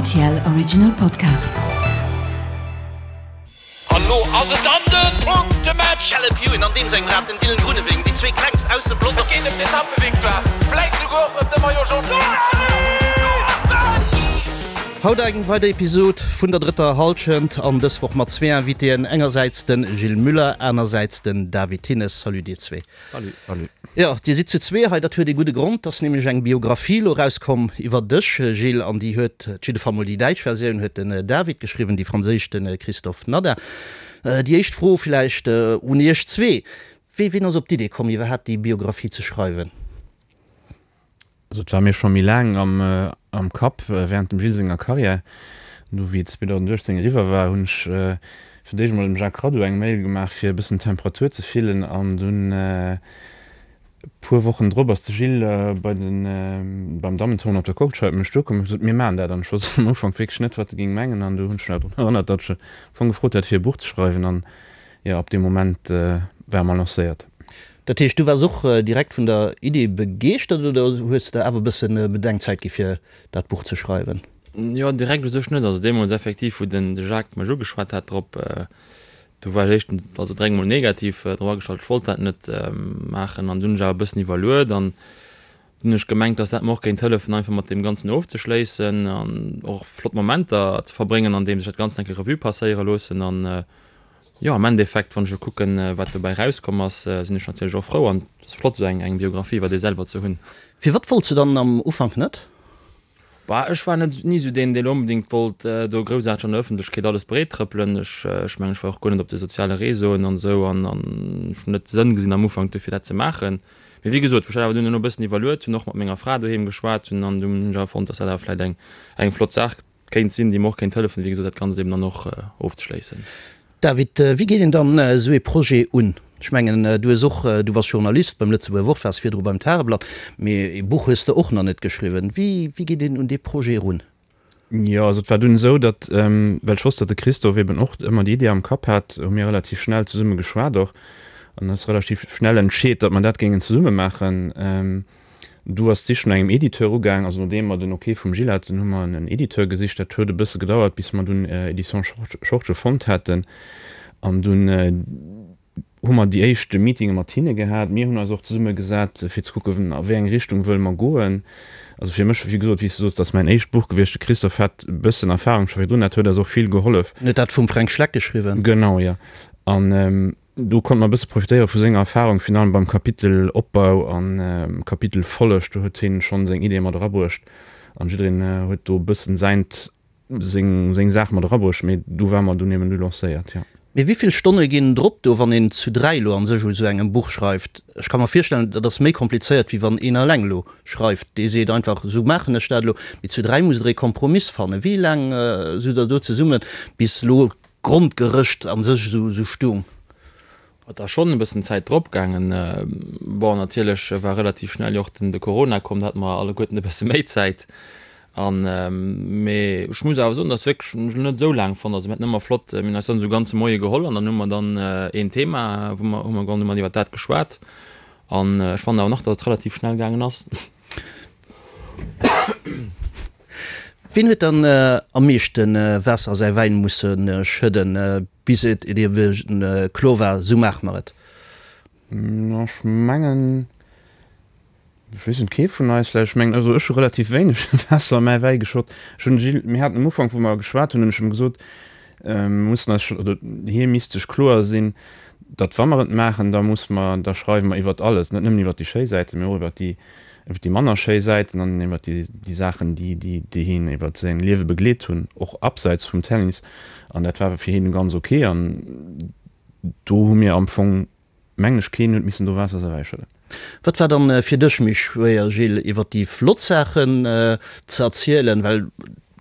RTL Original Podcast. An lo ass et dann den Punktematch! Caleb Ewan an deem sengem Rad den Dylan Groenewegen, déi zwee klengst aus dem Pelotong. Et geet ëm d'Etappevictoire, vläit souguer och ëm de Maillot Jaune. Haut eng weider Episod vun der drëtter Hallschent an dës Woch mat zwee Invitéen, engersäits de Gilles Muller, anersäits den David Thinnes. Salut dir zwee. Salut. Salut. Jo, dir sidd zu zwee hei, dat huet ee gudde Grond. Et ass nämlech eng Biographie elo erauskomm iwwer dech, Gilles, an déi huet, op jidde Fall mol déi däitsch Versioun huet den David geschriwwen, déi franséisch de Christophe Nader. Déi éischt Fro villäicht un iech zwee, Wéi, wien ass op d'Idee komm, iwwerhaapt déi Biographie ze schreiwen? Also et war mir scho méi laang am Kapp während dem Gilles senger Carrière. Du wéi et 2018 eriwwer war, hunn ech fir d'éischt emol dem Jacques Radou eng Mail gemaach fir e bëssen d'Temperatur ze fillen an dunn e puer Wochen drop ass de Gilles bei den beim Dammentournoi op der Courtscheid op mech duerkomm an huet gesot, mir maachen dat an ech wousst am Ufank wierklech net wat e géing mengen an du hunn ech mech awer drun erënnert, datt ech am Fong gefrot hat fir e Buch ze schreiwen an jo ab deem Moment ware mer lancéiert. Dat heescht, du waars och direkt vun der Idee begeeschtert oder hues de awer e bësse Bedenkzäit gi fir dat Buch ze schreiwen? Jo, direkt u sech net. Also deemools effektiv, wou den de Jacques mech ugeschwat hat drop, do war ech éischtens, also direkt mol negativ drop agestallt. Ech wollt dat net maachen an dunn hunn ech awer e bëssen iwwerluet an dunn hunn ech gemengt, dass dat mer och géint hëllefen, einfach mat deem Ganzen ofzeschléissen an och flott Momenter ze verbréngen, andeems ech dat Ganzt eng Kéier Revue passéiere loossen an Jo, am Endeffekt, wann ech elo kucken, wat dobäi rauskomm ass, sinn ech natierlech och frou an et ass flott, esou eng Biographie iwwer ee selwer ze hunn. Firwat wollts de dann am Ufank net? Bah, ech war net, ni esou deen, deen onbedéngt wollt do groussaarteg an der Ëffentlechkeet alles breet trëppelen. Ech, ech mengen, ech war och guer net op de soziale Réseauen an esou an an ech hunn net de Sënn gesinn am Ufank dofir dat ze maachen. Mee wéi gesot, wou ech dat awer dunn elo e bëssen iwwerluet hunn, och mat menger Fra doheem geschwat hunn an dunn hunn ech awer fonnt, dass dat awer vläicht eng, eng flott Saach Kéint sinn, déi mer och kéint hëllefen, wéi gesot, dat Ganzt eben dann och ofzeschléissen. David, wéi geet een dann esou ee Projet un? Ech mengen, du hues och, du bass Journalist beim Lëtzebuerger Wort, waars virdru beim Tageblatt, mee ee Buch hues de och nach net geschriwwen. Wéi, wéi geet een un dee Projet erun? Jo, also et war dunn esou, datt, well ech wosst, datt de Christophe eben och ëmmer déi Idee am Kapp hat, hu mir relativ schnell zesumme geschwat och an ass relativ schnell entscheet, datt mer dat géingen zesumme maachen. Du ass d'Sich no engem Editeur ugaang. Also nodeem mer den Ok vum Gilles haten, hu mer en Editeur gesicht. Dat huet e bësse gedauert, bis mer dunn Editions Schortgen fonnt haten. An dunn hu mer déi éischt Meetinge mat hinne gehat. Mir hunn eis och zesumme gesat, fir ze kucken, a wéi eng Richtung wëlle mer goen. Also fir mech, wéi gesot, wéi s du soos, dat ass mäin éischt Buch gewiescht. De Christophe hat e bëssen Erfahrung scho virdrun, dat huet eis och vill gehollef. En huet dat vum Fränk Schleck geschriwwen. Genau, jo. An Do konnt mer e bësse profitéiere vu senger Erfahrung, virun allem beim Kapitel Opbau an Kapitel Folleg. Do huet hien schonn seng Ideeë mat erabruecht an jiddereen huet do e bëssen säint, seng, seng Saach mat erabruecht. Mee do ware mer dunn eben du lancéiert, jo. Mee wéi vill Stonne ginn drop do, wann een zu 3 elo an sech u sou engem Buch schreift? Ech ka mer virstellen, dat ass méi komplizéiert, wéi wann een eleng elo schreift. Dee seet einfach, esou maachen ech dat elo. Mee zu 3 musst der ee Kompromiss fannen. Wéi laang sot der do zesummen, bis elo D'Grondgerëscht an sech esou stung. Et ass schonn e bëssen Zäit drop gaangen. Bon, natierlech war relativ schnell jo och den de Corona komm, da hate mer alleguerten e bësse méi Zäit. An, mee ech muss awer soen, dass wierklech, hunn ech elo net esou laang fonnt. Also mir haten ëmmer flott, mir hunn eis dann esou ganze Moie geholl an dann hu mer dann een Thema, wou mer, hu mer hu mer iwwer dat geschwat. An ech fannen awer nach, dass et relativ schnell gaangen ass. Wien huet dann am meeschte Waasser a säi Wäin musse schëdden, bis et ebe kloer war, Sou maache mer et? Ech mengen, ech weess net, kee vun eis vläicht. Ech mengen, also ech hu relativ wéineg Waasser a mäi Wäi geschott. Ech hunn de Gilles, mir haten am Ufank, wou mer geschwat hunn, hunn ech em gesot, mir mussen eis scho, oder hie misst sech kloer sinn, datt wa mer et maachen, da muss mer, da schreiwe mer iwwert alles, net nëmmen iwwert déi schéi Säiten, mee och iwwert déi iwwer déi manner schéi Säiten an iwwer déi, déi Saachen, déi, déi, déi hien iwwer säin Liewe begleet hunn, och abseits vum Tennis. An dat war fir hien ganz ok. An do hu mir am Fong, mengen ech, keen huet missen do Waasser ewech schëdden. Wat war dann fir dech méi schwéier, Gilles, iwwer déi flott Saachen ze erzielen, well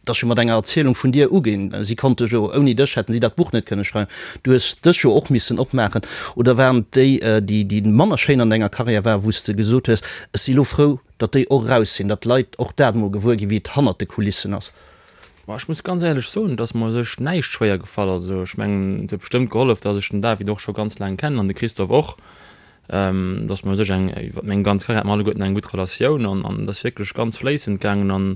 Et ass jo mat enger Erzielung vun dir uginn. Si konnte jo, ouni dech hätten si dat Buch net kënne schreiwen. Du hues dech jo och missen opmaachen. Oder waren et déi, déi, déi manner schéin an denger Karriär waren, wou s de gesot hues, ech si lo frou, datt déi och eraus sinn, datt d'Leit och dat emol gewuer ginn, wéi et hannert de Kulissen ass? Ma ech muss ganz éierlech soen, et ass mer u sech näischt schwéier gefall. Also ech mengen, et huet bestëmmt gehollef, datt ech den David och scho ganz laang kennen an de Christophe och, datt mer u sech eng, iwwer meng ganz Karriär hate mer alleguerten eng gutt Relatioun an an et ass wierklech ganz fléissend gaangen an.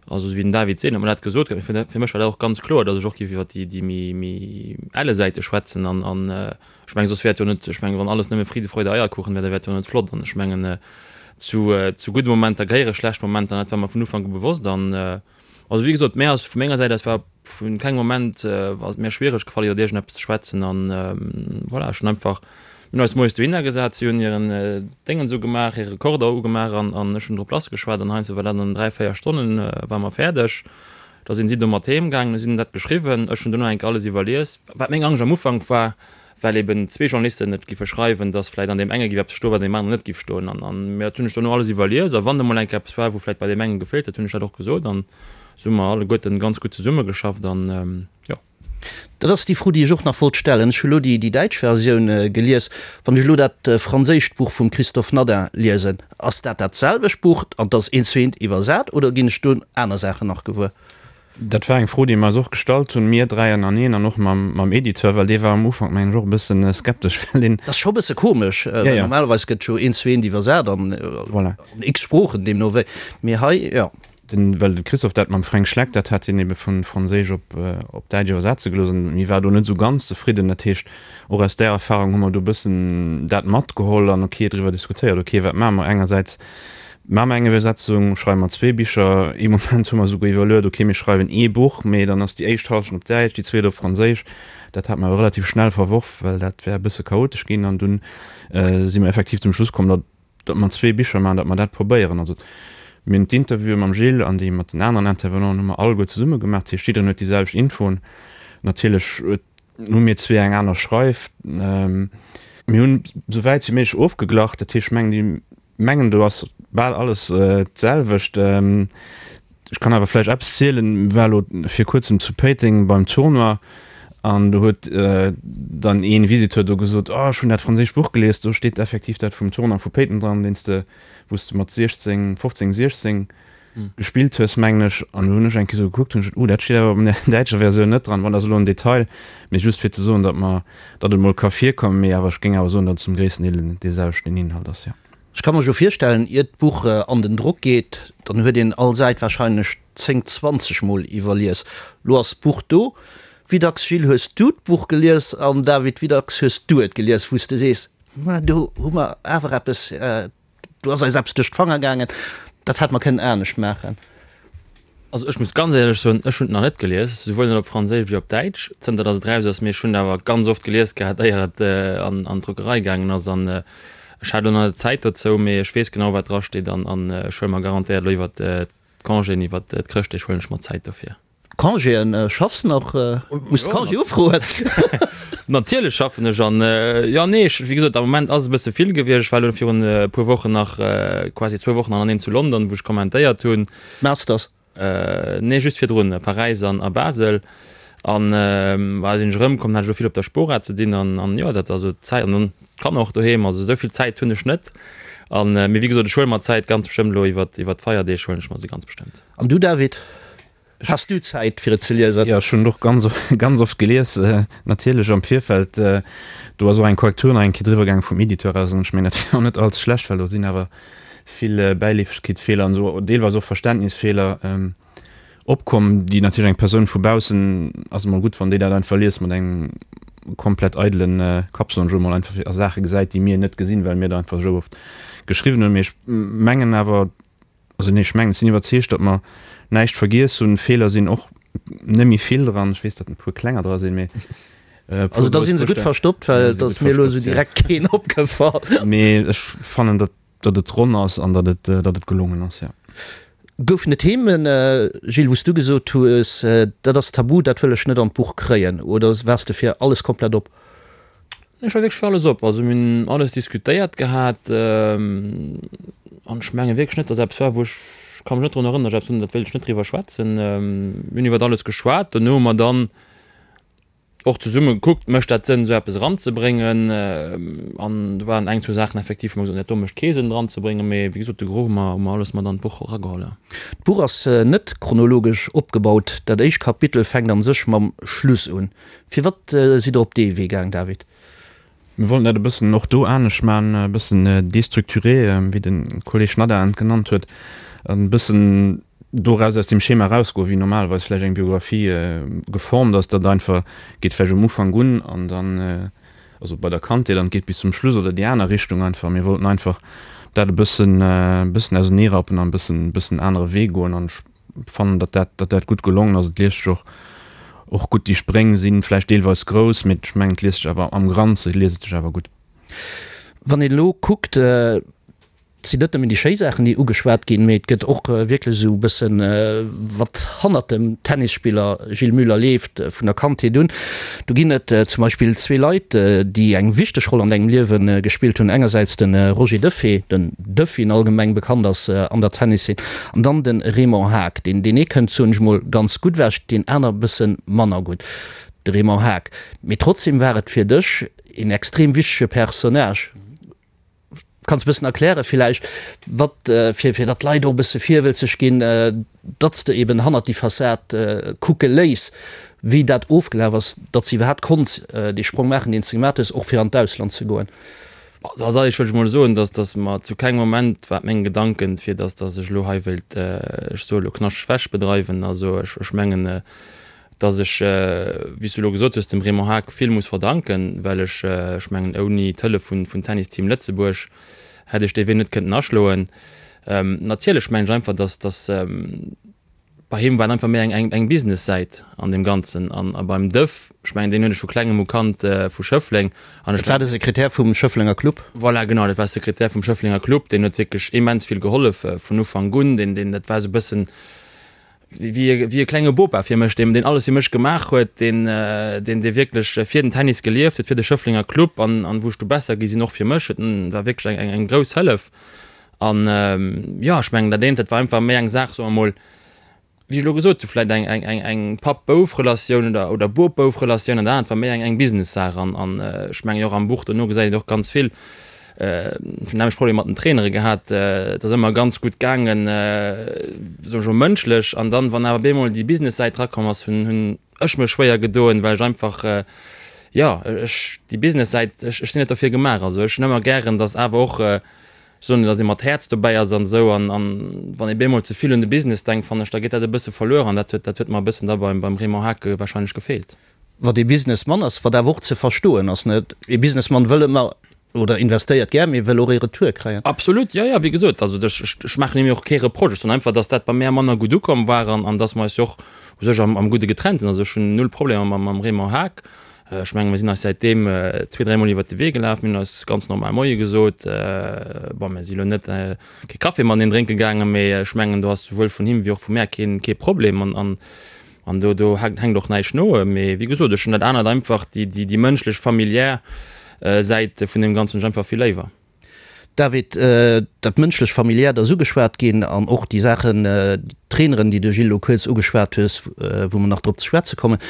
Also esou wéi den David seet, huet mer dat gesot gehat. Mee fir mech war dat och ganz kloer, datt ech och géif iwwer déi, déi méi, méi elle Säite schwätzen. An, an ech mengen, soss wär et jo net, ech mengen, wann alles nëmme Friede, Freude, Eierkuchen wär, da wär et jo net flott. An ech mengen, zu, zu gudde Momenter gehéiere schlecht Momenter, an dat war mer vun Ufank u bewosst. An also wéi gesot, mär ass vu menger Säit aus war vun kengem Moment ass et mär schwiereg gefall, iwwer iergendeppes ze schwätzen. An voilà, ech hunn einfach Mir hunn eis moies dohinner gesat, si hunn hiren Déngens ugemaach, hire Rekorder ugemaach an an ech hunn drop lass geschwat an heiansdo war dat an 3, 4 Stonnen ware mer fäerdeg. Da sinn si do mat heem gaangen, hu si dat geschriwwen, ech hunn duerno eng Kéier alles iwwerlies. Wat meng Angscht am Ufank war, well eben zwee Journalisten et giffe schreiwen, dass vläicht an deem enge giff eppes stoen, wat an deem aneren net giff stoen an an mee dat hunn ech duerno alles iwwerlies a wann emol eng Kéier eppes war, wou vläicht bei deem enge gefeelt huet, hunn ech dat och gesot an esou hu mer alleguerten ganz gutt zesummegeschafft an jo. Dat ass déi Fro, déi ech och nach wollt stellen. Ech hu lo déi däitsch Versioun gelies. Wann ech elo dat franséischt Buch vum Christophe Nadin liesen, ass dat dat selwecht Buch an 't ass eent zu eent iwwersat oder ginn ech do aner Saachen nach gewuer? Dat war eng Fro, déi mer eis och gestallt hunn, mir dräi ënnereen an och mam Editeur, well dee war am Ufank, mengen ech, och e bësse skeptesch, well deen. Dat ass scho e bësse komesch, well normalerweis gëtt jo eent zu eent iwwersat an x Sproochen, deemno wéi. Mee hei, jo. Den, well de Christophe dat mam Fränk Schleck, dat hat hien ebe vu Franséisch op, op Däitsch iwwersetze gelooss an hie war do net esou ganz zefridden. Dat heescht, och aus där Erfahrung hu mer do e bëssen dat matgeholl an ok driwwer diskutéiert, ok, wat maache mer? Engersäits maache mer eng Iwwersetzung, schreiwe mer zwee Bicher, ee Moment hu mer esouguer iwwerluet, ok, mir schreiwen ee Buch, mee dann ass déi éischt Hallschent op Däitsch, déi zweet op Franséisch. Dat hat mer awer relativ schnell verworf, well dat wär e bësse chaotesch ginn an dunn si mer effektiv zum Schluss komm, datt, datt mer zwee Bicher maachen, datt mer dat probéieren. Also mir hunn d'Interviewe mam Gilles an déi mat den aneren Intervenanten hu mer alleguer zesumme gemaach. Dat heescht, jiddereen huet déi selwecht Infoen. Natierlech huet, hu mir zwee eng aner Schreif. Mir hunn esou wäit wéi méiglech ofgeglach. Dat heescht, ech mengen, déi mengen, do ass bal alles d'selwecht. Ech kann awer vläicht eppes zielen, war elo vir kuerzem zu Péiteng beim Tournoi an do huet dann een Visiteur do gesot, oh ech hunn dat franséischt Buch gelies, do steet effektiv dat vum Tournoi vu Péiteng dran, deen s de, wou s de mat 16, 15, 16 gespillt hues mengen ech. An do hunn ech eng Kéier esou gekuckt, hunn ech gesot, oh dat steet awer op der däitscher Versioun net dran. Bon, dat ass elo en Detail, mee just fir ze soen, datt mer, datt et emol ka virkommen, mee awer ech géing awer soen, datt et zum gréissten Deel dee selwechten Inhalt ass, jo. Ech ka mer jo virstellen, iert d'Buch an den Drock geet, dann huet een all Säit wahrscheinlech 10, 20 mol iwwerlies. Lo ass d'Buch do. Wéi dacks, Gilles, hues du d'Buch gelies an David, wéi dacks hues du et gelies, wou s de sees, ma do hu mer awer eppes, do ass eis eppes duerch d'Fanger gaangen, dat hätt mer kënnen anescht maachen? Also ech muss ganz éierlech soen, ech hunn et nach net gelies, souwuel net op Franséisch wéi op Däitsch, zënter datt et eraus ass. Mee ech hunn et awer ganz oft gelies gehat, éier et an d'Druckerei gaangen ass. An ech hat elo nach net d'Zäit dozou, mee ech weess genau, wat drasteet. An ech huele mer garantéiert elo iwwert d'Congéen, iwwert d'Chrëschtdeeg huelen ech mer Zäit dofir. Congéen, schaffs nach? Muss Congé ufroen? Natierlech schaffen ech an jo nee ech wéi gesot am Moment ass e bësse vill gewiescht. Ech war elo virun e puer Wochen nach quasi zwou Wochen aneneen zu London wou ech kommentéiert hunn. Masters? Nee just virdrun, Paräis an a Basel an bah sinn ech erëmkomm, hat ech elo vill op der Spora ze dinn an an jo dat also d'Zäit an dann d'Kanner och doheem, also esou vill Zäit hunn ech net an mee wéi gesot ech huele mer d'Zäit ganz bestëmmt elo iwwert iwwert d'Feierdeeg huelen ech mer se ganz bestëmmt. An du David? Has du Zäit fir et ze liesen? Jo, ech hunn et och ganz, ganz oft gelies, natierlech am Virfeld. Do ass och eng Korrektur nach eng Kéier driwwer gaangen vum Editeur aus an ech mengen, dat wier och net allze schlecht, well do sinn awer vill Bäileefegkeetsfeeler an esou, deelweis och Verständnisfeeler opkomm, déi natierlech eng Persoun vu baussen, ass emol gutt, wann déi dat einfach liest mat engem komplett eidele Kapp, soen ech elo mol, einfach a Saache gesäit, déi mir net gesinn, well mir der einfach esou oft geschriwwen hunn. Mee ech mengen awer, Also nee, ech mengen, ech sinn iwwerzeegt, datt mer näischt vergiess hunn. Feeler sinn och net méi vill dran. Ech weess, datt e puer klenger dra sinn, mee e puer Also da si se gutt verstoppt, well et ass mir elo esou direkt keen opgefall. Mee ech fannen, datt datt et ronn ass an datt et datt et gelongen ass, jo. Goufen et Themen, Gilles, wou s du gesot hues, dat ass tabu, dat wëll ech net an d'Buch kréien, oder waars de fir alles komplett op? Ech war wierklech fir alles op. Also mir hunn alles diskutéiert gehat an ech menge wierklech net, datt eppes war, wou ech, ech ka mech net drun erënneren, datt ech eppes hunn, dat wéilt ech net driwwer schwätzen. Mir hunn iwwert alles geschwat. Dono hu mer dann och zesumme gekuckt, mécht dat Sënn, esou eppes eranzebréngen? An do waren eng, zwou Saachen effektiv, wou mer gesot hunn, dat do mécht kee Sënn eranzebréngen. Mee wéi gesot, de Gros hu mer, hu mer alles mat an d'Buch erageholl, jo. D'Buch ass net chronologesch opgebaut. Dat éischt Kapitel fänkt an sech mam Schluss un. Firwat sidd der op dee Wee gaang, David? Mir wollten dat e bëssen och do anescht maachen, e bëssen déstructuré, wéi de Kolleg Nadaen et genannt huet, e bëssen. Doraus, aus deem Schema erausgoen, wéi normalerweis vläicht eng Biographie geformt ass, datt einfach geet vläicht um Ufank un an dann, also bei der Kandheet an et geet bis zum Schluss oder déi aner Richtung einfach. Mir wollten einfach dat e bëssen, e bëssen auserneerappen an e bëssen, e bëssen anere Wee goen an ech fannen, datt dat, datt dat gutt gelongen ass. Et liest sech och, och gutt. Déi Spréng si vläicht deelweis grouss, mee ech mengen, et liest sech awer am Granze liest et sech awer gutt. Wann een elo kuckt, Et sinn net nëmmen déi schéi Saachen, déi ugeschwat ginn, mee et gëtt och wierklech esou e bëssen, wat hannert dem Tennisspiller Gilles Muller leeft, vun der Kandheet un. Do ginn et zum Beispill zwee Leit, déi eng wichteg Roll an dengem Liewe gespillt hunn, engersäits de Roger Duffé, den Duff, wéi en allgemeng bekannt ass an der Tenniszeen, an dann de Raymond Haag. Deen ee kënnt, soen ech mol, ganz gutt ewech, deen aner e bësse manner gutt, de Raymond Haag. Mee trotzdem war et fir dech een extrem wichtege Personnage. Kanns e bëssen erklären villäicht, wat, fir, fir datt d'Leit och e bësse virwëlzeg ginn, datt s de eben hannert déi Fassad kucke léiss, wéi dat ofgelaf ass, datt s iwwerhaapt konns dee Sprong maachen, deen s de gemaach hues, och fir an d'Ausland ze goen? Also als alleréischt wëll ech emol soen, datt, datt mer zu kengem Moment war et meng Gedanken, fir datt, datt ech elo hei wéilt, ech soe elo, knaschteg Wäsch bedreiwen. Also ech, ech mengen, dass ech, wéi s du elo gesot hues, dem Raymond Haag vill muss verdanken, well ech, ech mengen, ouni d'Hëllef vun, vun Tennis Team Lëtzebuerg hätt ech dee Wee net kënnten aschloen. Natierlech mengen ech einfach, dass, dass bei him war et einfach méi eng, eng, eng Business-Säit an deem Ganzen an a beim Duff, ech mengen, deen hunn ech vu klengem u kannt, vu Schëffleng an ech. Dat war de Sekretär vum Schëfflenger Club? Voilà, genau, dat war Sekretär vum Schëfflenger Club, deen huet wierklech immens vill gehollef vun Ufank un, deen, deen, dat war esou e bëssen, wéi e klenge Bopa fir mech, deen alles fir mech gemaach huet, deen dee wierklech fir den Tennis gelieft huet, fir de Schëfflenger Club an an wou ech du besser gi sinn, och fir mech huet en, war wierklech eng eng grouss Hëllef. An jo, ech mengen dat eent, dat war einfach méi eng Saach, soe mer mol, wéi ech elo gesot hu vläicht eng eng eng eng Papp-Bouf-Relatioun oder oder Bop-Bouf-Relatioun an dat anert war méi eng eng Business-Saach an an ech mengen och am Buch dono gesäit een och ganz vill, Ech hunn nämlech Problemer mat den Trainere gehat. Et ass ëmmer ganz gutt gaangen, soen ech mol mënschlech. An dann, wann awer bemol déi Business-Säit drakomm ass, hunn hunn ech mech schwéier gedoen, well ech einfach, jo, ech déi Business-Säit, ech ech sinn net dofir gemaach. Also ech hunn ëmmer gären, datt awer och, ech soen net, datt ee mat Häerz dobäi ass an esou. An an wann ee bemol ze vill un de Business denkt, fannen ech, da geet dat e bësse verluer. An dat huet dat huet mer e bëssen da beim beim Raymond Hake warscheinlech gefeelt. Wat ee Businessmann ass, wat awer och ze verstoen ass, net? Ee Businessmann wëll ëmmer oder investéiert gär, mee wëll och ee Retour kréien. Absolut, jo, jo, wéi gesot, also ech, ech maachen him jo och kee Reproche, ech soen einfach, datt dat bei mär manner gutt ukomm war an, an datt mer eis jo och u sech am, am Gudde getrennt sinn. Also ech hunn null Problemer mam, mam Raymond Haag. Ech menge mir sinn eis säitdeem zwee, dräimol iwwert de Wee gelaf, mir hunn eis ganz normal Moie gesot. Bon, mir si lo net kee Café mateneen drénke gaangen, mee ech mengen do ass souwuel vun him wéi och vu mär keen, kee Problem an, an An do, do hänkt och näischt no. Mee wéi gesot, ech hunn dat anert einfach, déi, déi, déi mënschlech, familiär Säit vun deem Ganzen hunn ech einfach vill léiwer. David, dat mënschlech, familiärt ass ugeschwat ginn an och déi Saachen, d'Traineren, déi de Gilles elo kuerz ugeschwat hues, wou mer nach drop ze schwätze kommen.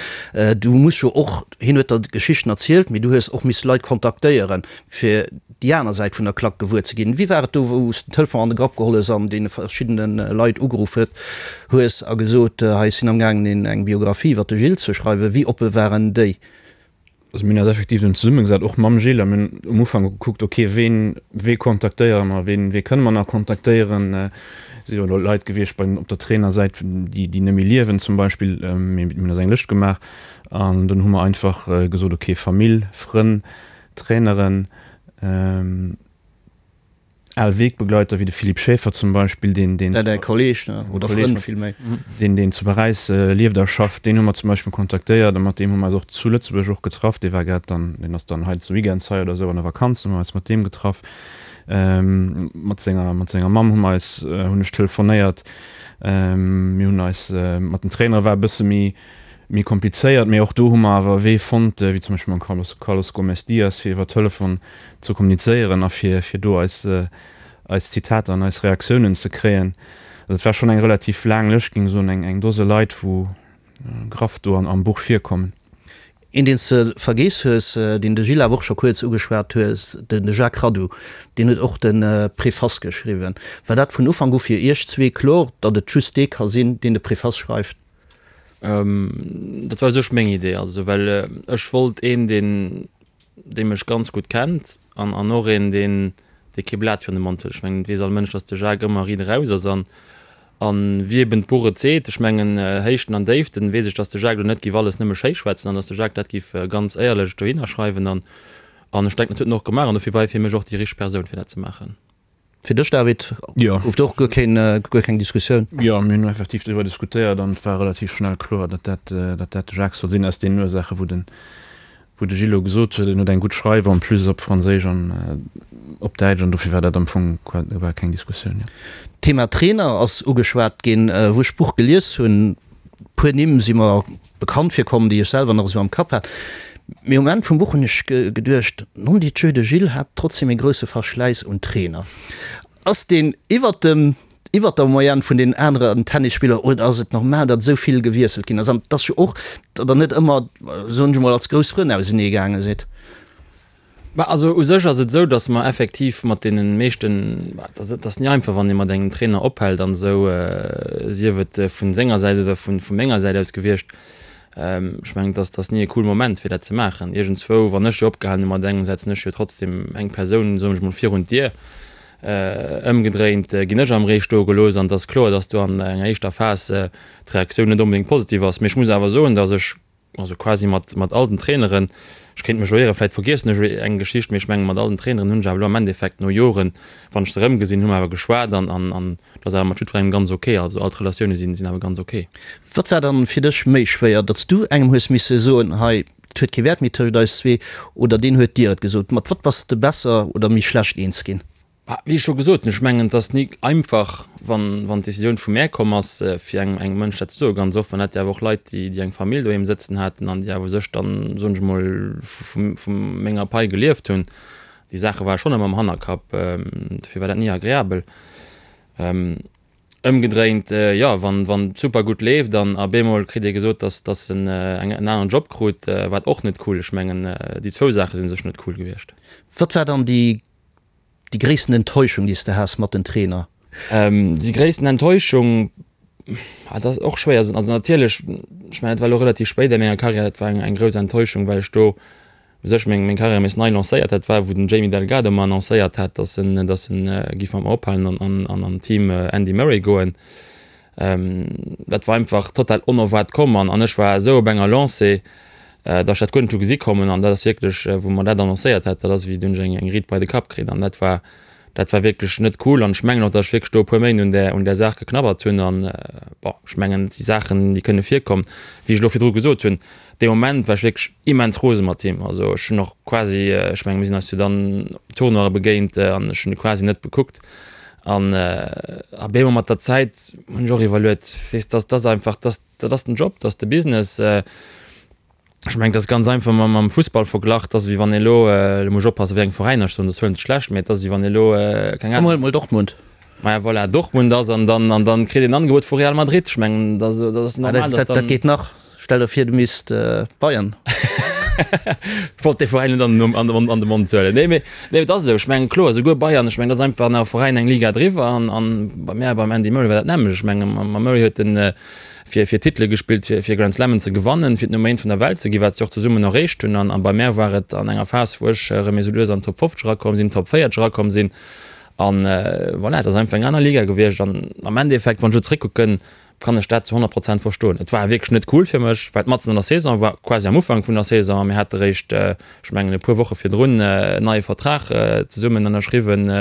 Du muss jo och, hien huet der Geschichten erzielt, mee du hues och misse Leit kontaktéieren, fir déi aner Säit vun der Klack gewuer ze ginn. Wéi war et do, wou s den Telefon an de Grapp geholl hues an deene verschiddene Leit ugeruff hues a gesot, hei ech sinn am gaangen eng Biographie iwwer de Gilles ze schreiwen? Wéi oppe waren déi? Also mir hunn eis effektiv dunn zesummegesat, och mam Gilles, a mir hunn um Ufank gekuckt, ok, ween, wee kontaktéiere mer, ween, wee kënne mer nach kontaktéieren? Et si jo elo Leit gewiescht bei den, op der Trainersäit, déi, déi net méi liewen zum Beispill. Mee mir hunn eis eng Lëscht gemaach an dunn hu mer einfach gesot, ok, Famill, Frënn, Traineren, al Wegbegleiter wéi de Philippe Schaeffer zum Beispill, deen, deen. Däi Kolleg, ne, oder Frënd villméi. Deen, deen zu Paräis lieft a schafft, deen hu mer zum Beispill kontaktéiert a mat deem hu mer eis och zu Lëtzebuerg och getraff. Dee war grad dann, deen ass dann hei zu Weekends hei oder esou an der Vakanz, hu mer eis mat deem getraff. Mat senger, mat senger Mamm hu mer eis, hunn ech telefonéiert. Mir hunn eis, mat den Trainere war e bësse méi, méi komplizéiert, mee och do hu mer awer e Wee fonnt, wéi zum Beispill mam Carlos, Carlos Gomes Dias, fir iwwer Telefon ze kommunizéieren a fir, fir do eis, eis Zitater an eis Reaktiounen ze kréien. Also et war schonn eng relativ laang Lëscht, géing ech soen, eng, eng Dose Leit, wou graff do an, am Buch virkommen. Een, deen s de vergeess hues, deen de Gilles awer och scho kuerz ugeschwat hues, de Jacques Radou, deen huet och de Préface geschriwwen. War dat vun Ufank u fir iech zwee kloer, datt et just dee ka sinn, deen de Préface schreift? Dat war u sech meng Idee, also well ech wollt een, deen dee mech ganz gutt kennt an an och een, deen dee kee Blat virun de Mond huet. Ech mengen, et weess all Mënsch, datt de Jacques ëmmer riit eraus ass an. An wéi eben d'Buch et seet, ech mengen Héichten an Déiften, weess ech, dass de Jacques elo net giff alles nëmme schéi schwätzen an dass de Jacques dat giff ganz éierlech dohinner schreiwen. An an ech denken, dat huet en och gemaach an dofir war hie fir mech och déi richteg Persoun fir dat ze maachen. Fir dech, David, gouf do och guer keen, guer keng Diskussioun? Jo, mir hunn effektiv driwwer diskutéiert an et war relativ schnell kloer, datt dat, datt dat de Jacques soll sinn, aus deenen Ursaache wou den, wou de Gilles elo gesot huet, en huet eng gutt Schreif en plus op Franséisch an op Däitsch an dofir war dat am Fong war keng Diskussioun, jo. D'Thema Trainer ass ugeschwat ginn. Wou ech d'Buch gelies hunn, puer Nimm si mer bekannt virkomm, déi ech selwer nach esou am Kapp hat. Mee um Enn vum Buch hunn ech geduecht, Non Dieu, de Gilles hat trotzdem ee grousse Verschläiss un Trainer. Ass deen iwwert dem, iwwert der Moyenne vun den aneren Tennisspiller oder ass et normal, datt esou vill gewiesselt ginn ass an dass jo och, datt der net ëmmer, soen ech emol, als grouss Frënn ausenee gaange sidd? Bah, also u sech ass et esou, datt mer effektiv mat deene meeschten, bah, et ass, et ass ni einfach, wann ee mat engem Trainer ophält an esou, sief et vu senger Säit oder vu menger Säit aus gewiescht. Ech mengen, et ass, et ass ni e cool Moment, fir dat ze maachen. Iergendzwou, wann ech jo opgehalen hu mat engem, setzen ech jo trotzdem eng Persoun, soen ech mol, virun d'Dier. Ëmgedréint ginn ech am Ree stoe gelooss an et ass kloer, datt do an enger éischter Phas d'Reaktioun net onbedéngt positiv ass. Mee ech muss awer soen, datt ech Also quasi mat, mat all den Traineren, ech kéint mech elo ieren, vläit vergiessen ech elo eng Geschicht, mee ech mengen mat all den Traineren hunn ech awer elo am Endeffekt no Joren, wann ech se erëmgesinn hunn, hu mer awer geschwat an, an, an dat ass awer mat jiddwerengem ganz ok. Also all d'Relatioune sinn, sinn awer ganz ok. Wat war dann fir dech méi schwéier, datt s du engem hues misse soen, hei, et huet kee Wäert méi tëscht eis zwee, oder deen huet dir et gesot? Mat wat bass de besser oder méi schlecht eens ginn? Bah, wéi ech scho gesot hunn, ech mengen, et ass ni einfach, wann, wann d'Decisioun vu mär komm ass, fir engem, engem Mënsch dat ze soen. Ganz oft waren dat jo awer och Leit, déi, déi eng Famill doheem sëtzen haten an déi awer u sech dann, soen ech emol, vu, vu menger Pai gelieft hunn. Déi Saache ware schonn ëmmer am Hannerkapp, dofir war dat ni agreabel. Ëmgedréint, jo, wann, wann et super gutt leeft an a bemol kritt ee gesot, dass, dass en eng, en aneren Job krut, war et och net cool. Ech mengen, déi zwou Saache sinn u sech net cool gewiescht. Wat war dann déi Déi gréissten Enttäuschung, déi s de has mat den Trainer? Déi gréissten Enttäuschung, dat ass och schwéier ze soen. Also natierlech, ech mengen, dat war elo relativ spéit a menger Karriär, dat war eng grouss Enttäuschung, well ech do u sech meng Karriär nees nei lancéiert hat. Dat war, wou den Jamie Delgado mer annoncéiert hat, datt en, datt en giff mat mer ophalen an an an Team Andy Murray goen. Dat war einfach total onerwaart komm an ech war esou op enger Lancée, datt ech dat guer net hu gesi kommen an dat ass wierklech, wou mer dat annoncéiert hat, dat ass wéi hunn ech eng Riit bei de Kapp kritt an dat war, dat war wierklech net cool an ech mengen och, datt ech wierklech do e puer Méint un där, un där Saach geknabbert hunn an bon, ech mengen et si Saachen, déi kënne virkommen. Wéi ech elo virdru gesot hunn, dee Moment war ech wierklech immens rose mat him, also ech hunn och quasi, ech menge mir sinn eis jo dann op Tournoie begéint an ech hunn e quasi net bekuckt. An op eemol mat der Zäit hunn ech och iwwerluet, weess dass dass einfach dass dat ass den Job, dat ass de Business. Ech mengen, dat ass ganz einfach mam mam Fussball verglach, dat ass wéi wann ee elo, elo muss ech oppassen, wéi eng Veräiner ech soen, dat ass wuel net schlecht, mä et ass wéi wann ee elo, keng Ahnung. Huel mol Dortmund. Maja voilà, Dortmund ass an dann an dann kritt een en Angebot vu Real Madrid. Ech mengen, dat ass normal, dass dann. Dat geet nach. Stell der vir du misst Bayern. Ech wollt dee Veräin net an an de Mond huelen. Nee, mee nee, et ass esou. Ech mengen, kloer, esouguer Bayern, ech mengen, dat ass einfach nach e Veräin eng Liga driwwer. An an bei mär, beim Andy Murray war dat d'nämmlecht. Ech mengen, mam Murray huet en fir fir Titele gespillt, fir fir Grand Slammen ze gewannen, fir d'Nummer eent vun der Welt ze ginn, wat se och zesummen erreecht hunn. An a bei mär war et an enger Phas, wou ech erëm esou lues an d'Top 50 erakomm sinn, Top 40 erakomm sinn. An voilà, et ass einfach eng aner Liga gewiescht. An am Endeffekt, wann ech elo zeréckkucken, kann ech dat zu 100 Prozent verstoen. Et war wierklech net cool fir mech, well et matzen an der Saison war, quasi am Ufank vun der Saison, a mir hate réischt, ech mengen e puer Woche virdrun, en neie Vertrag zesummen ënnerschriwwen.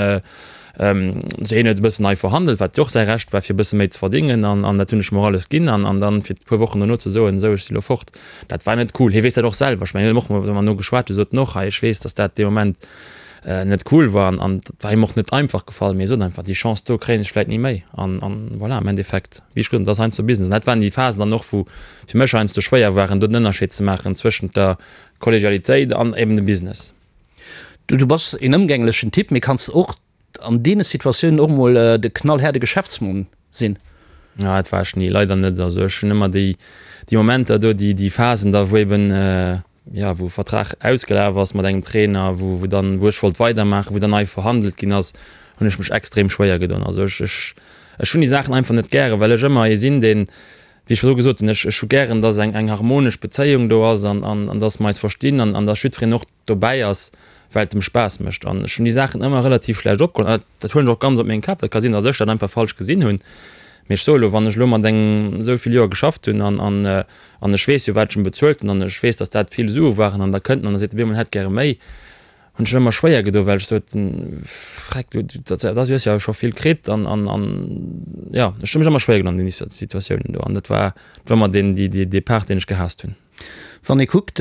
Sou hien huet e bëssen nei verhandelt, wat jo och säi Recht war, fir e bësse méi ze verdingen, an an dat hunn ech mer alles ginn. An an dann fir e puer Wochen dono ze soen, esou ech si lo fort, dat war net cool. Hie weess dat och selwer. Ech mengen, hien huet och, wa mer no geschwat hunn, sot en och, hei ech weess, datt dat dee Moment net cool war an an war him och net einfach gefall, mee hie sot einfach, déi Chance do kréien ech vläit ni méi an an voilà, am Endeffekt, wéi ech gesot hunn, dat ass heiansdo Business an dat waren déi Phasen dann och, wou fir mech heiansdo schwéier waren, do den Ënnerscheed ze maachen zwëschent der Kollegialitéit an eben dem Business. Du du bass een ëmgänglechen Typ, mee kanns och an deene Situatiounen och mol de knallhaarde Geschäftsmann sinn? Ah, dat war ech ni, leider net. Also ech hunn ëmmer déi déi Momenter do, déi déi Phasen da, wou eben jo, wou e Vertrag ausgelaf ass mat engem Trainer, wou, wou dann, wou ech wollt weidermaachen, wou dann nei verhandelt ginn ass, hunn ech mech extrem schwéier gedoen. Also ech, ech, ech hunn déi Saachen einfach net gären, well ech ëmmer ee sinn, deen, wéi ech virdru gesot hunn, ech, ech hu gären, dass eng, eng harmonesch Bezéiung do ass an, an, an dass mer eis verstinn an, an dass jiddwereen och dobäi ass, well et em Spaass mécht. An ech hunn déi Saachen ëmmer relativ schlecht opgeholl. An dat, dat huelen ech och ganz op meng Kap. Dat ka sinn, dass ech dat einfach falsch gesinn hunn. Mee ech soe lo, wann ech elo mat engem esou vill Joer geschafft hunn an, an, an ech weess jo, wat ech em bezuelt hunn an ech weess, datt dat vill Sue waren an da kënnt en an da seet e bemol, en hätt gäre méi, hunn ech ëmmer schwéier gedo, well ech sot, Freck, du, dat, dat hues jo scho vill kritt an, an, an jo, ech hu mech ëmmer schwéier gedoen an deene Situatiounen do an dat war, dat war ëmmer deen, déi, dee, dee Part, deen ech gehaasst hunn. Wann ee kuckt,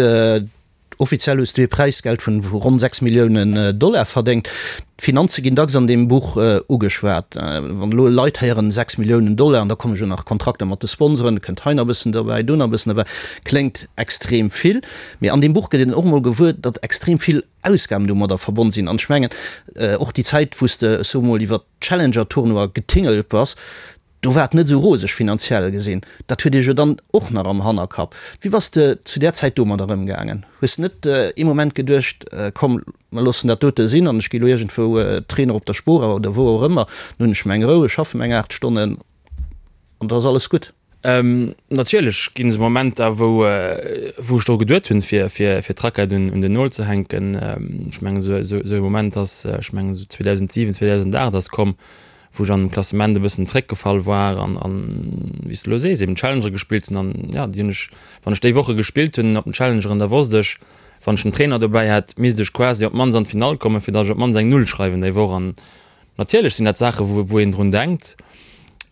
Offiziell hues du ee Präisgeld vun ronn 6 Milliounen Dollar verdéngt. D'Finanze ginn dacks an deem Buch ugeschwat. Wann elo Leit héieren 6 Milliounen Dollar, an da komme jo nach Kontrakter mat de Sponsoren, kënnt hei nach e bëssen derbäi, do nach e bëssen derbäi, kléngt extrem vill. Mee an deem Buch gëtt een och emol gewuer, datt extrem vill Ausgaben domadder verbonn sinn. An ech mengen, och déi Zäit, wou s de, ech soe mol, iwwer d'Challenger-Tournoie getingelt bass, Do war et net esou roseg finanziell gesinn. Dat huet Iech jo dann och nach am Hannerkapp. Wéi bass de zu där Zäit domadder ëmgaangen? Hues de net ee Moment geduecht, komm mer loossen dat dote sinn an ech gi lo iergendwou Trainer op der Spora oder wou och ëmmer, dann hunn ech meng Rou, ech schaffe meng 8 Stonnen an da ass alles gutt? Natierlech ginn esou Momenter, wou wou ech dru geduet hunn, fir fir fir d'Rackett un un den Nol ze hänken. Ech mengen esou esou esou e Moment ass, ech mengen esou 2007, 2008 ass komm, wou ech an dem Klassement e bëssen zréckgefall war an, an wéi s de elo sees, eben Challenger gespillt hunn an ja, déi hunn ech, wann ech déi Woche gespillt hunn op den Challengeren, da wosst ech, wann ech den Trainer dobäi hätt, misst ech quasi op d'mannst an d'Finall kommen, fir datt ech op d'mannst eng Null schreiwen déi Woch. An natierlech sinn dat Saache wou, wou een drun denkt.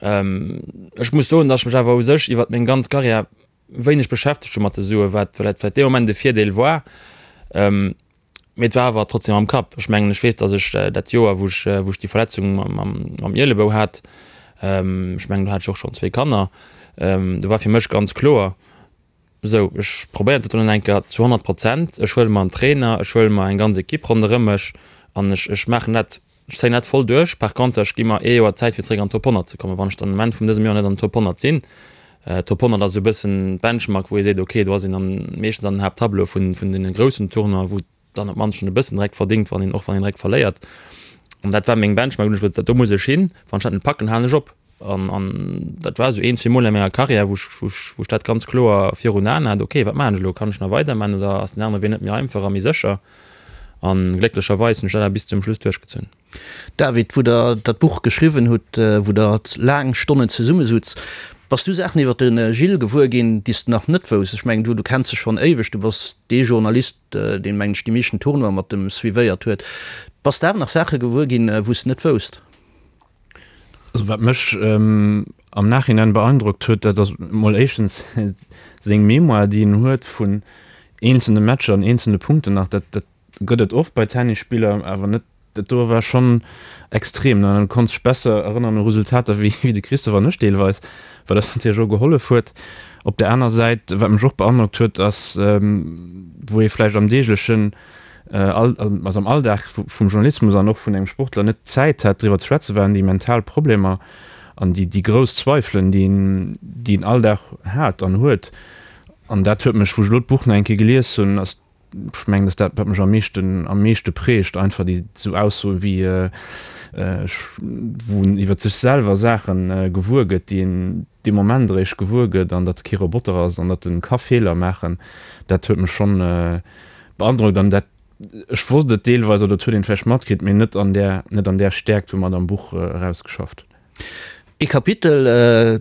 Ech muss soen, datt ech mech awer u sech iwwert meng ganz Karriär wéineg beschäftegt hu mat de Suen, wat vläicht dee Moment e Virdeel war. Mee et war awer trotzdem am Kapp. Ech mengen, ech weess, datt ech dat Joer, wou ech, wou ech déi Verletzung mam, mam Ielebou hat, ech mengen, do hat ech och schonn zwéi Kanner, do war fir mech ganz kloer, Esou, ech probéieren dat elo nach eng Kéier zu 100 Prozent. Ech huele mer en Trainer, ech huele mer eng ganz Ekipp ronderëm mech an ech, ech maachen dat, ech zéien dat voll duerch. Par contre, ech gi mer ee Joer Zäit, fir zeréck an d'Top 100 ze kommen. Wann ech dann um Enn vun dësem Joer net an den Top 100 sinn, Top 100 ass esou e bëssen d'Benchmark, wou ee seet, okay, do ass een dann meeschtens an den Haapttableau vun, vun deene groussen Tournoien, wou dann op d'mannst schonn e bëssen direkt verdingt, wann een, och wann een direkt verléiert. An dat war meng Benchmark, hunn ech gesot, do muss ech hin, wann ech dat net packen, halen ech op. An, an dat war esou een, zwee Mol a menger Karriär, wou ech, wou ech, wou ech dat ganz kloer virun Aen hat, okay, wat maachen ech elo, kann ech nach weidermachen oder ass den anere Wee net méi einfach a méi sécher? An glécklecherweis hunn ech dat awer bis zum Schluss duerchgezunn. David, wou der dat Buch geschriwwen hutt, wou der laang Stonnen zesummesutz, bass du Saachen iwwer de Gilles gewuer ginn, déi s de nach net wousst? Ech mengen, du du kenns e schonn éiweg, du bass dee Journalist, deen, mengen ech, déi meeschten Tournoie mat em suivéiert huet. Bass de awer nach Saache gewuer ginn, wou s de net wousst? Also wat mech am Nachhinein beeindrockt huet, dat ass mol éischtens seng Mémoire, déi en huet vun eenzelne Matcher an eenzelne Punkten nach. Dat, dat Gëtt et oft bei Tennisspiller, awer net dat do war schonn extrem. En konnt sech besser erënneren u Resultater wéi de Christophe an ech deelweis, wat eis natierlech och gehollef huet. Op der aner Säit, wat mech och beandrockt huet, ass wou ee vläicht am deeglechen, also am Alldag vum Journalismus an och vun engem Sportler net d'Zäit hat driwwer ze schwätzen, waren déi mental Problemer an déi grouss Zweifelen, déi een déi een all Dag hat an huet. An dat huet mech, wou ech elo d'Buch nach eng Kéier gelies hunn, ass Ech mengen, dass dat, wat mech am meeschten, am meeschte prägt, einfach déi esou Aussoen wéi, ech, wou en iwwer sech selwer Saache gewuer gëtt, déi een dee Moment eréischt gewuer gëtt, an datt e kee Roboter ass an datt en ka Feeler maachen, dat huet mech schonn beandrockt. An dat, ech wosst et deelweis oder et huet een vläicht matkritt, mee net an där, net an där Stäerkt, wou mer et am Buch erausgeschafft. Ee Kapitel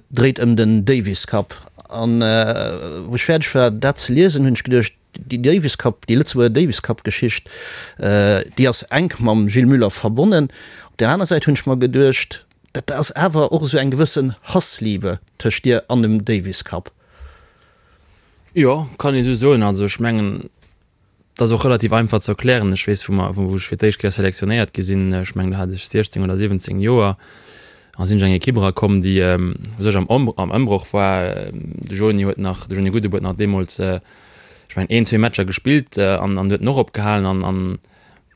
dréit ëm den Davis Cup, an wou ech fäerdeg war dat ze liesen, hunn ech geduecht, Déi Davis Cup, déi Lëtzebuerger Davis Cup Geschicht, déi ass enk mam Gilles Muller verbonnen. Op där aner Säit hunn ech mer geduecht, dat ass awer och esou eng gewëssen Hassliebe tëscht dir an dem Davis Cup. Jo, kann ee sou soen. Also ech mengen, dat ass och relativ einfach ze erklären. Ech weess, wou mer, wou ech fir d'éischt Kéier selektionéiert gi sinn, ech mengen do hat ech 16 oder 17 Joer, a sinn ech an eng Ekipp erakomm, déi u sech am am Ëmbroch war. De Joni huet nach, de Joni Gudde huet nach deemools, ech mengen een, zwee Matcher gespillt an an huet en och opgehalen. An an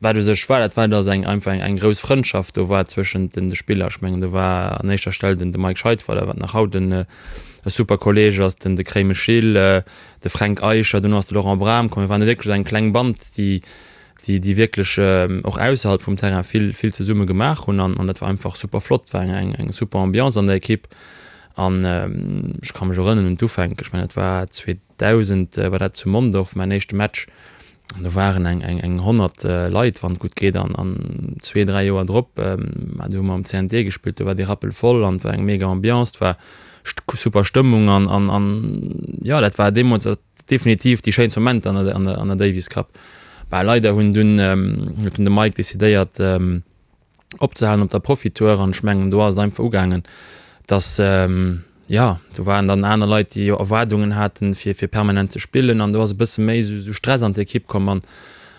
wat u sech war, dat war, datt eng einfach eng eng grouss Frëndschaft do war zwëschent den de Spiller. Ech mengen do war an éischter Stell den de Mike Scheidweiler, wat nach haut en e super Kolleeg ass, den de Kréimesch Gilles, de Fränk Eicher, duerno ass de Laurent Bram komm. Mir waren wierklech esou eng kleng Band, déi déi déi wierklech och ausserhalb vum Terrain vill vill zesumme gemaach hunn an an dat war einfach super flott, war eng eng eng super Ambiance an der Ekipp an ech ka mech erënneren un d'Ufänk, ech mengen dat war 2000 war dat zu Mondorf mäin éischte Match. An do waren eng, eng, eng 100 Leit, wann et gutt geet. An, an zwee, dräi Joer drop, ma do hu mer am CNT gespillt, do war dee Rappel voll an et war eng mega Ambiance, et war super Stëmmung an, an, an jo, dat war deemools definitiv déi schéinst Momenter an der, an der, an der Davis Cup. Bah, leider hunn dunn, huet dunn de Mike decidéiert, opzehalen op der Profitour an ech mengen do ass et einfach ugaangen, dass jo do waren dann aner Leit déi jo Erwaardungen haten fir fir permanent ze spillen an do ass e bësse méi esou Stress an d'Ekipp komm an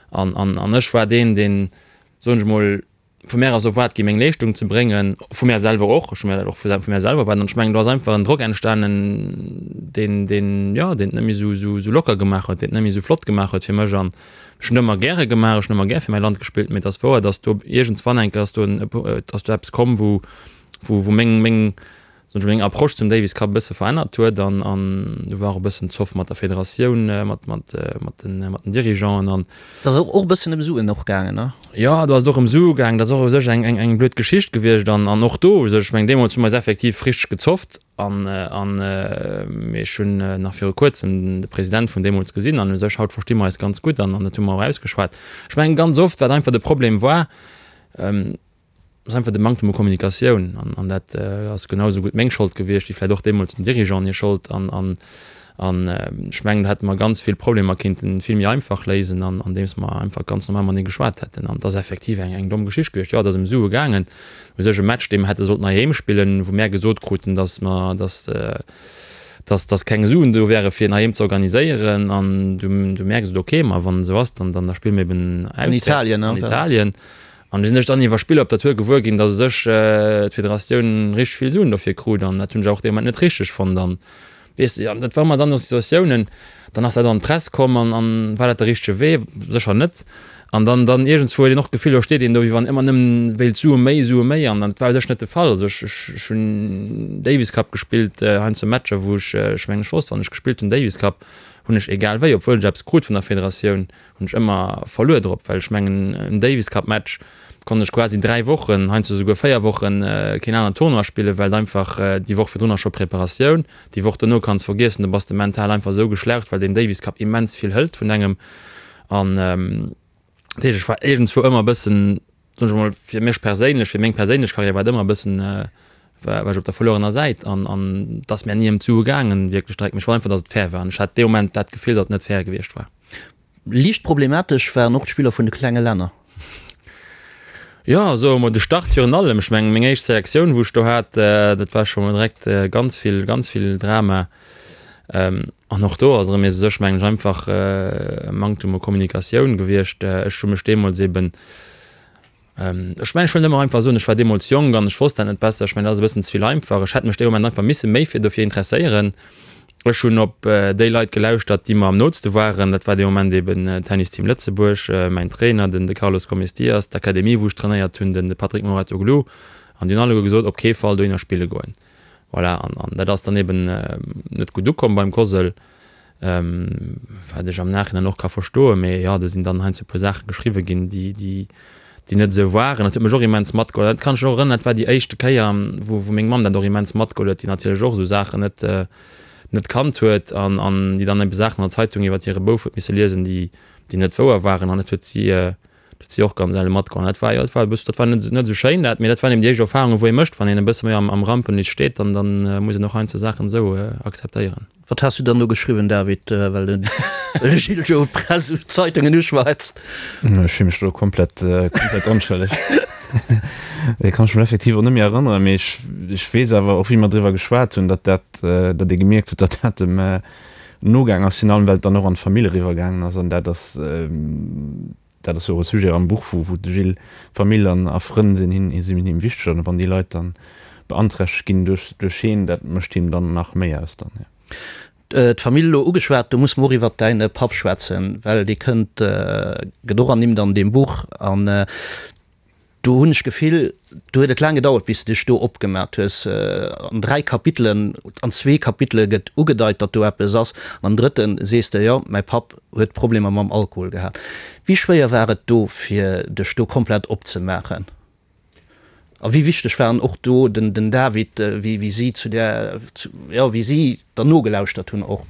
an an an ech war deen deen soen ech mol vu mär ass erwaart gi meng Leeschtung ze bréngen, vu mär selwer och, ech hu mär dat och vu mär selwer erwaart an ech mengen do ass einfach en Drock entstanen deen deen jo deen et net méi esou esou locker gemaach huet, deen et net méi esou flott gemaach huet fir mech an Ech hunn ëmmer gäre gemaach, ech hunn ëmmer gär fir mäi Land gespillt, mee et ass wouer, datt do iergendswann eng Kéier ass do en, ass do eppes komm, wou, wou, wou meng, meng, soen ech mol, meng Approche zum Davis Cup e bësse verännert huet an, an do war och e bëssen Zoff mat der Federatioun, mat, mat, mat den, mat den Dirigeanten an. Et ass och e bëssen ëm Suen och gaangen, ne? Jo, do ass et och ëm Sue gaangen. Dat ass och u sech eng, eng, eng blöd Geschicht gewiescht an, an och do u sech, ech mengen, deemools hu mer eis effektiv richteg gezofft. An mee ech hunn nach viru kuerzem de President vun deemools gesinn an u sech haut versti mer eis ganz gutt an an dat hu mer och ausgeschwat. Ech mengen ganz oft wat einfach de Problem war, ass einfach de Manktem u Kommunikatioun an an dat ass genau esou gutt meng Schold gewiescht wéi vläicht och deemools den Dirigeanten hir Schold an an an ech mengen do hätte mer ganz vill Problemer kinnten vill méi einfach léisen an andeems mer einfach ganz normal matenee geschwat hätten an et ass effektiv eng eng domm Geschicht gewiescht. Jo, et ass ëm Sue gaangen. U sech e Match, dee mer hätte sollten heiheem spillen, wou mär gesot kruten, dass mer, dass, dass, dass keng Suen do wäre fir en heiheem ze organiséieren. An du, du mär gesot, okay, ma wann esou ass, dann, dann da spille mir eben An Italien, an Italien. An du sinn ech dann iwwer Spiller op der Tour gewuer ginn, dass u sech d'Federatioun richteg vill Suen dofir krut. An dat hunn ech och dee Moment net richteg fonnt. An Weess de, an dat war ëmmer dann esou Situatiounen, dann ass dat an d'Press komm an, an war dat de richtege Wee? Sécher net. An dann, dann iergendswou huet een och d'Gefill, do steet een do, wéi wann ëmmer nëmmen wéilt Sue méi, Sue méi an dat war u sech net de Fall. Also ech, ech, ech hunn Davis Cup gespillt, heiansdo Matcher, wou ech, ech mengen ech wosst, wann ech gespillt hunn Davis Cup, hunn ech egal wéi, obwuel ech eppes krut vun der Federatioun, hunn ech ëmmer verluer drop, well ech mengen en Davis Cup Match konnt ech quasi 3 Wochen, heiansdo souguer 4 Wochen keen aneren Tournoi spillen, well einfach déi Woch virdrun ass scho Preparatioun, déi Woch dono kanns vergiessen, do bass de mental einfach esou geschlaucht, well deen Davis Cup immens vill hëlt vun engem an dat heescht ech war iergendzwou ëmmer e bëssen, soen ech emol, fir mech perséinlech, fir meng perséinlech Karriär war et ëmmer e bëssen, war ech op der verluerener Säit an an et ass mär ni ëm d'Sue gaangen wierklech direkt, mee ech wollt einfach, datt et fair war an ech hat dee Moment dat Gefill, datt et net fair gewiescht war. Liicht problematesch waren och d'Spiller vun de klenge Länner. Jo, soe mer de Start virun allem. Ech mengen, meng éischt Selektioun, wou ech do hat, dat war scho mol direkt ganz vill, ganz vill Drama. An och do ass erëm u sech, mengen ech, einfach e Manktum u Kommunikatioun gewiescht. Ech hu mech deemools eben Ech mengen, ech wëll nëmme einfach soen, ech war deemools jonk an ech wosst dat net besser. Ech mengen, dat ass e bëssen ze vill einfach. Ech hätt mech dee Moment einfach misse méi fir dofir interesséieren. Ech hunn op déi Leit gelauschtert, déi mer am nootste waren. Dat war dee Moment eben Tennis Team Lëtzebuerg, mäin Trainer, den de Carlos Gomes Dias, d'Akademie, wou ech trainéiert hunn, den de Patrick Mouratoglou. An déi hunn alleguer gesot, op kee Fall dohinner spille goen. Voilà, an an dat ass dann eben net gutt ukomm beim Cosl. Wat ech am Nachhinein och ka verstoen, mee jo, do sinn dann heiansdo e puer Saache geschriwwe ginn, déi, déi, déi net esou waren. Dat huet mech och immens matgeholl. Dat kann ech mech och erënneren, dat war déi éischte Kéier, wou, wou meng Mamm dat och immens matgeholl huet, déi natierlech och esou Saachen net, net kannt huet an, an déi dann ebe Saachen an der Zeitung iwwer hire Bouf huet misse liesen, déi, déi net wouer waren. An dat huet si, Dat si och ganz elle matgoen. Dat war, jo, dat war e bëss, dat war net, net esou schéin dat, mee dat waren eben déi éischt Erfahrungen, wou ee mécht, wann een e bësse méi am, am Rampenlicht steet, dann, dann muss een och heiansdo Saachen esou akzeptéieren. Wat has du dann do geschriwwen, David, well de Gilles jo d'Press, d'Zeitungen uschwätzt? Ech fille mech do komplett, komplett onschëlleg. Dat kann ech mech effektiv och net méi erënneren, mee ech, ech weess awer och, wéi mer driwwer geschwat hunn, datt dat, datt ee gemierkt huet, datt dat dem nogaang ass, virun allem well et dann och an d'Famill eriwwer gaangen ass an dat ass dat ass jo och e Sujet am Buch, wou wou de Gilles Famill an a Frënn sinn him sinn him wichteg an wann déi Leit dann beanträchtegt ginn duerch duerch heen, dat mécht him dann nach méi aus dann, jo. D'Famill elo ugeschwat, do musse mer och iwwert däin Papp schwätzen, well dee kënnt, gëtt och ernimmt an deem Buch an Do hunn ech d'Gefill, do huet et laang gedauert, bis de dech do opgemat hues. An 3 Kapitelen, an zwee Kapitele gëtt ugedeit, datt do eppes ass, an am drëtte sees de, jo, mäi Papp huet Problemer mam Alkohol gehat. Wéi schwéier war et do, fir dech do komplett opzemaachen? A wéi wichteg waren och do den David, wéi si zu där, jo, wéi si der nogelauschtert hunn och?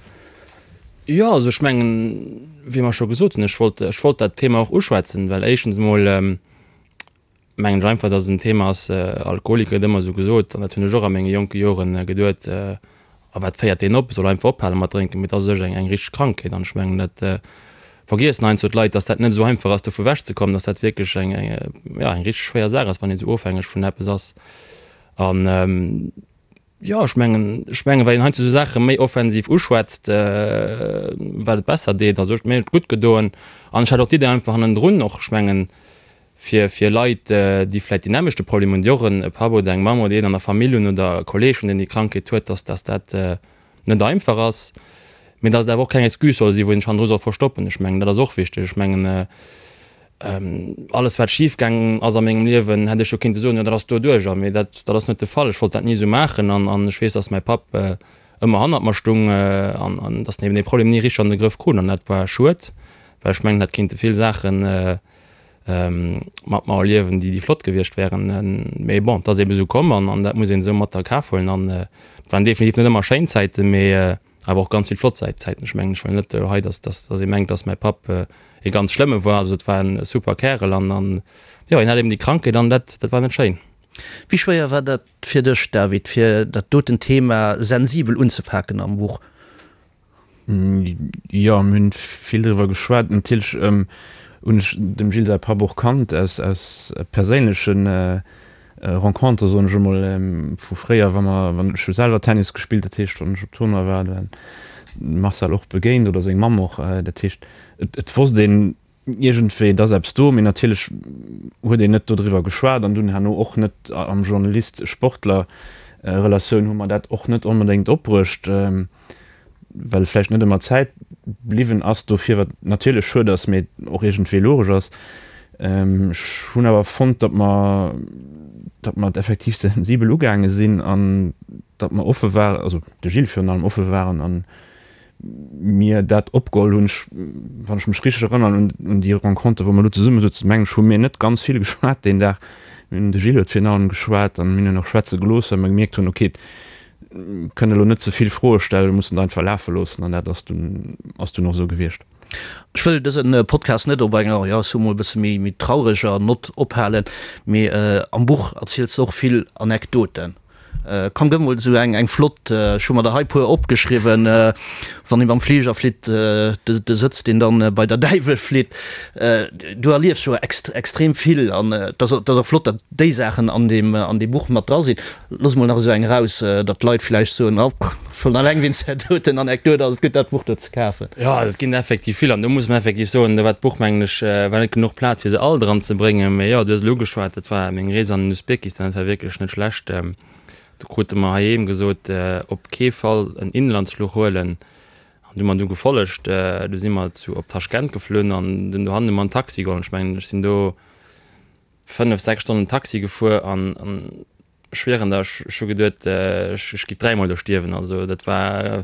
Jo, also ech mengen, wéi mer scho gesot hunn, ech wollt, ech wollt dat Thema och uschwätzen, well éischtens emol mengen ech einfach, dass et en Thema ass, Alkoholiker gëtt ëmmer esou gesot, an dat hunn ech och a menge jonke Joren geduet, a wat féiert deen op, soll einfach ophale mat drénken, mee et ass u sech eng, eng richteg Krankheet an ech mengen, dat vergiessen heiansdo d'Leit, dass dat net esou einfach ass, dovu wechzekommen, dass dat wierklech eng, eng, jo, eng richteg schwéier Saach ass, wann een esou ofhängeg vun eppes ass an. Jo, ech mengen, ech mengen, well een heiansdo esou Saache méi offensiv uschwätzt, wat et besser deet. Also ech, mir huet et gutt gedoen an ech hat och d'Idee einfach hannendrun och, ech mengen, fir, fir Leit, déi vläicht deen nämmlechte Problem hunn, déi och en Papp oder eng Mamm oder een an der Famill hunn oder e Kolleeg hunn, deen déi Krankheet huet, dass, dass dat net einfach ass, mee dass et awer och keng Excuse soll sinn, wou een sech hannendru soll verstoppen. Ech mengen, dat ass och wichteg. Ech mengen, Alles wat schif gaangen ass a mengem Liewen, hätt ech jo kinnte soen, jo dat ass doduercher, mee dat dat ass net de Fall. Ech wollt dat ni esou maachen an an ech weess, datt mäi Papp ëmmer hannert mer stung an an datt en eben dee Problem ni richteg an de Grëff krut an dat war schued, well ech mengen, hätt kinnte vill Saache mat mer erliewen, déi déi flott gewiescht wären. Mee bon, et ass eben esou komm an an dat muss een esou mat a Kaf huelen an et waren definitiv net ëmmer schéin Zäiten, mee Awer och ganz vill flott Zäiten. Ech mengen, ech wëll net elo hei, dass, dass, dass ee mengt, dass mäi Papp e ganz schlëmme war. Also et war en super Kärel an, an jo, hien hat eben déi Krankheet an dat, dat war net schéin. Wéi schwéier war dat fir dech, David, fir dat doten Thema sensibel unzepaken am Buch? Jo, mir hunn vill driwwer geschwat. Natierlech hunn ech dem Gilles säi Papp och kannt aus, aus perséinlechen Rencontre, soen ech emol, vu fréier, wa mer, wann ech hu selwer Tennis gespillt, dat heescht, wann ech op Tournoi war, da de Marcel och begéint oder seng Mamm och. Dat heescht, et, et wosst een iergendwéi, et ass eppes do, mee natierlech huet een net dodriwwer geschwat an dunn herno och net am Journalist-Sportler Relatioun hu mer dat och net onbedéngt opbruecht. Well vläicht net ëmmer Zäit bliwwen ass dofir, wat natierlech schued ass, mee och iergendwéi logesch ass. Ech hunn awer fonnt, datt mer, datt mer et effektiv sensibel ugaange sinn an datt mer offe waren, also de Gilles virun allem offe waren a mir dat opgeholl hunn. Ech, wann ech mech richteg erënnern un, un déi Renconter, wou mer elo zesumme souzen, mengen ech, hu mir net ganz vill geschwat deen Dag. Mir hunn, de Gilles huet virun allem geschwat an mir hunn en och schwätze gelooss, well mer gemierkt hunn, okay, kënne elo net ze vill Froe stellen, mir mussen et einfach lafe loossen an dat ass dunn ass dunn och esou gewiescht. Ech wëll dëse Podcast net op enger, jo, ech soe mol e bësse méi méi traureger Nott ophalen, mee am Buch erziels de och vill Anekdoten. Komm, gëff mol esou eng eng flott, ech hu mer der hei puer opgeschriwwen, wann ee mam Fliger flitt, de de Sëtz deen dann bei der Däiwel flitt. Du erliefs jo extrem vill an et ass et ass och flott, datt déi Saachen an deem an deem Buch mat dra sinn. Looss mol nach esou eng eraus, datt d'Leit vläicht soen, oh, schonn alleng wéinst där doten Anekdot ass et gutt, dat Buch do ze kafen. Jo, et ginn effektiv vill an do muss mer effektiv soen, do war d'Buch, mengen ech, war net genuch Plaz, fir se all dran ze bréngen. Mee jo, du hues elo ugeschwat, dat war meng Rees an den Usbekistan, dat war wierklech net schlecht. Do krute mer heiheem gesot, op kee Fall en Inlandsfluch huelen. An du hu mer du gefollegt, du si mer zu op Taschkent geflunn an dunn dohannen hu mer en Taxi geholl. Ech mengen, ech sinn do 5, 6 Stonnen Taxi gefuer an ech schwieren der, ech hu geduet, ech giff dräimol do stierwen. Also dat war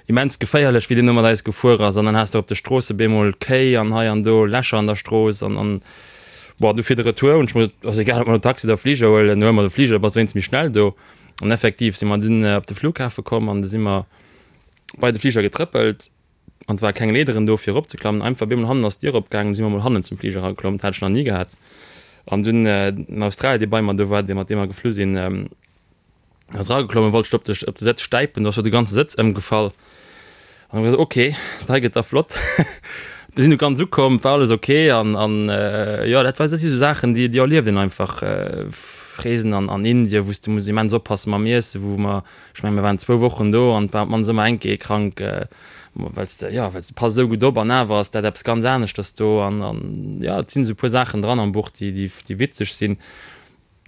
immens geféierlech, wéi deen do mat eis gefuer ass. An dann has de op de Stroosse bemol Kéi an hei an do Lächer an der Strooss an an bon, du fir de Retour hunn ech mer gesot, ass egal ob mer elo Taxi oder Fliger huelen, huele mer de Fliger, da bass de wéinstens méi schnell do. An effektiv si mer dunn op de Flughafe komm an du si mer bei de Fliger getrëppelt. An et ware keng Leederen do fir eropzeklammen, einfach bemol hannen ass d'Dier opgaangen, si mer mol hannen zum Fliger erageklomm, dat hat ech nach ni gehat. An dunn den Australier dee bei mer do war, dee mat deem mer geflu sinn, ass erageklommen, wollt sech op de op de Sëtz stäipen, do ass jo de ganze Sëtz ëmgefall. An hu mer gesot, ok, dat hei gëtt da flott. Mir sinn du ganz ukomm, et war alles ok an an jo dat war dat si sou Saachen déi déi erlieft een einfach. Reesen an an Indien, wou s de muss immens oppasse mam Iessen, wou mer Ech mengen, mir waren zwou Wochen do an et war op d'mannst ëmmer eng Kéier ee krank, well s de, jo, well s de pass esou gutt op an awer ass dat eppes ganz aneschters do an, an jo, et sinn esou e puer Saachen dran am Buch, déi, déi, déi witzeg sinn,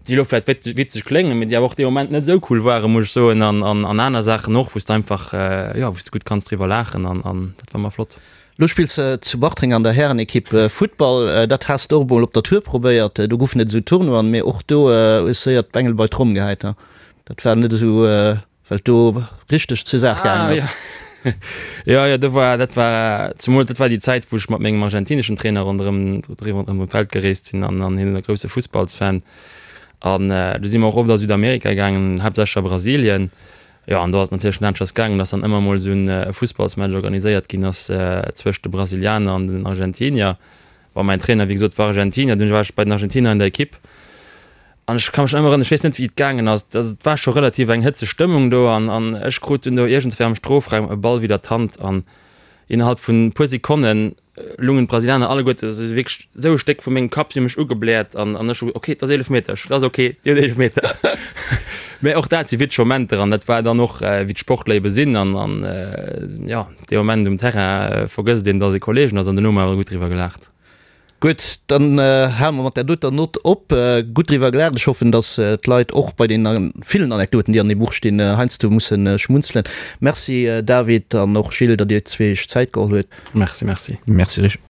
déi elo vläicht wit, witzeg kléngen, mee déi awer och dee Moment net esou cool waren, muss ech soen an, an, an aner Saachen och, wou s de einfach, jo, wou s de gutt kanns driwwer laachen an, an dat war ëmmer flott. Lo spills de zu Bartreng an der Härenekipp Futtball. Dat has de och emol op der Tour probéiert. Do goufen et esou Tournoien, mee och do hues séier d'Bengel bei d'Tromm gehäit. Dat war net esou, well et do richteg zur Saach gaangen ass. Jo, jo, do war, dat war zemol, dat war déi Zäit, wou ech mat mengem argentineschen Trainer ronderëm, ronderëm d'Welt gereest sinn an an hien e grousse Fussballsfan. An do si mer och oft a Südamerika gaangen, haaptsächlech a Brasilien. Jo, an do ass et natierlech net aneschters gaangen, dass dann ëmmer mol esou e Fussballsmatch organiséiert ginn ass zwëscht de Brasilianer an den Argentinier. Bon, mäin Trainer, wéi gesot, war Argentinier, dunn war ech bei den Argentinier an der Ekipp an ech ka mech nach ëmmer erënneren, ech weess net, wéi et gaangen ass, also et war scho relativ eng hëtzeg Stëmmung do an an ech krut dunn do iergendswéi am Strofraum e Ball widder d'Hand an innerhalb vun e puer Sekonnen lungen d'Brasilianer alleguerte se si wierklech esou e Stéck vu mengem Kapp, si hu mech ugebläert an an ech hu ok, et ass Eelefmeter, et ass ok, dir hutt Eelefmeter. Mä och dat si witzeg Momenter an dat war dann och wéi d'Sportler ebe sinn an an jo, dee Moment um Terrain vergësst een, datt ee Kollegen ass an duerno hu mer awer gutt driwwer gelaacht. Gutt, dann hale mer mat där doter Nott op. Gutt driwwer gelaacht. Ech hoffen, datt d'Leit och bei deene villen Anekdoten, déi an deem Buch stinn, heiansdo musse schmunzelen. Merci David an och Gilles, datt Dir zwee Iech Zäit geholl huet. Merci, merci. Merci Rich.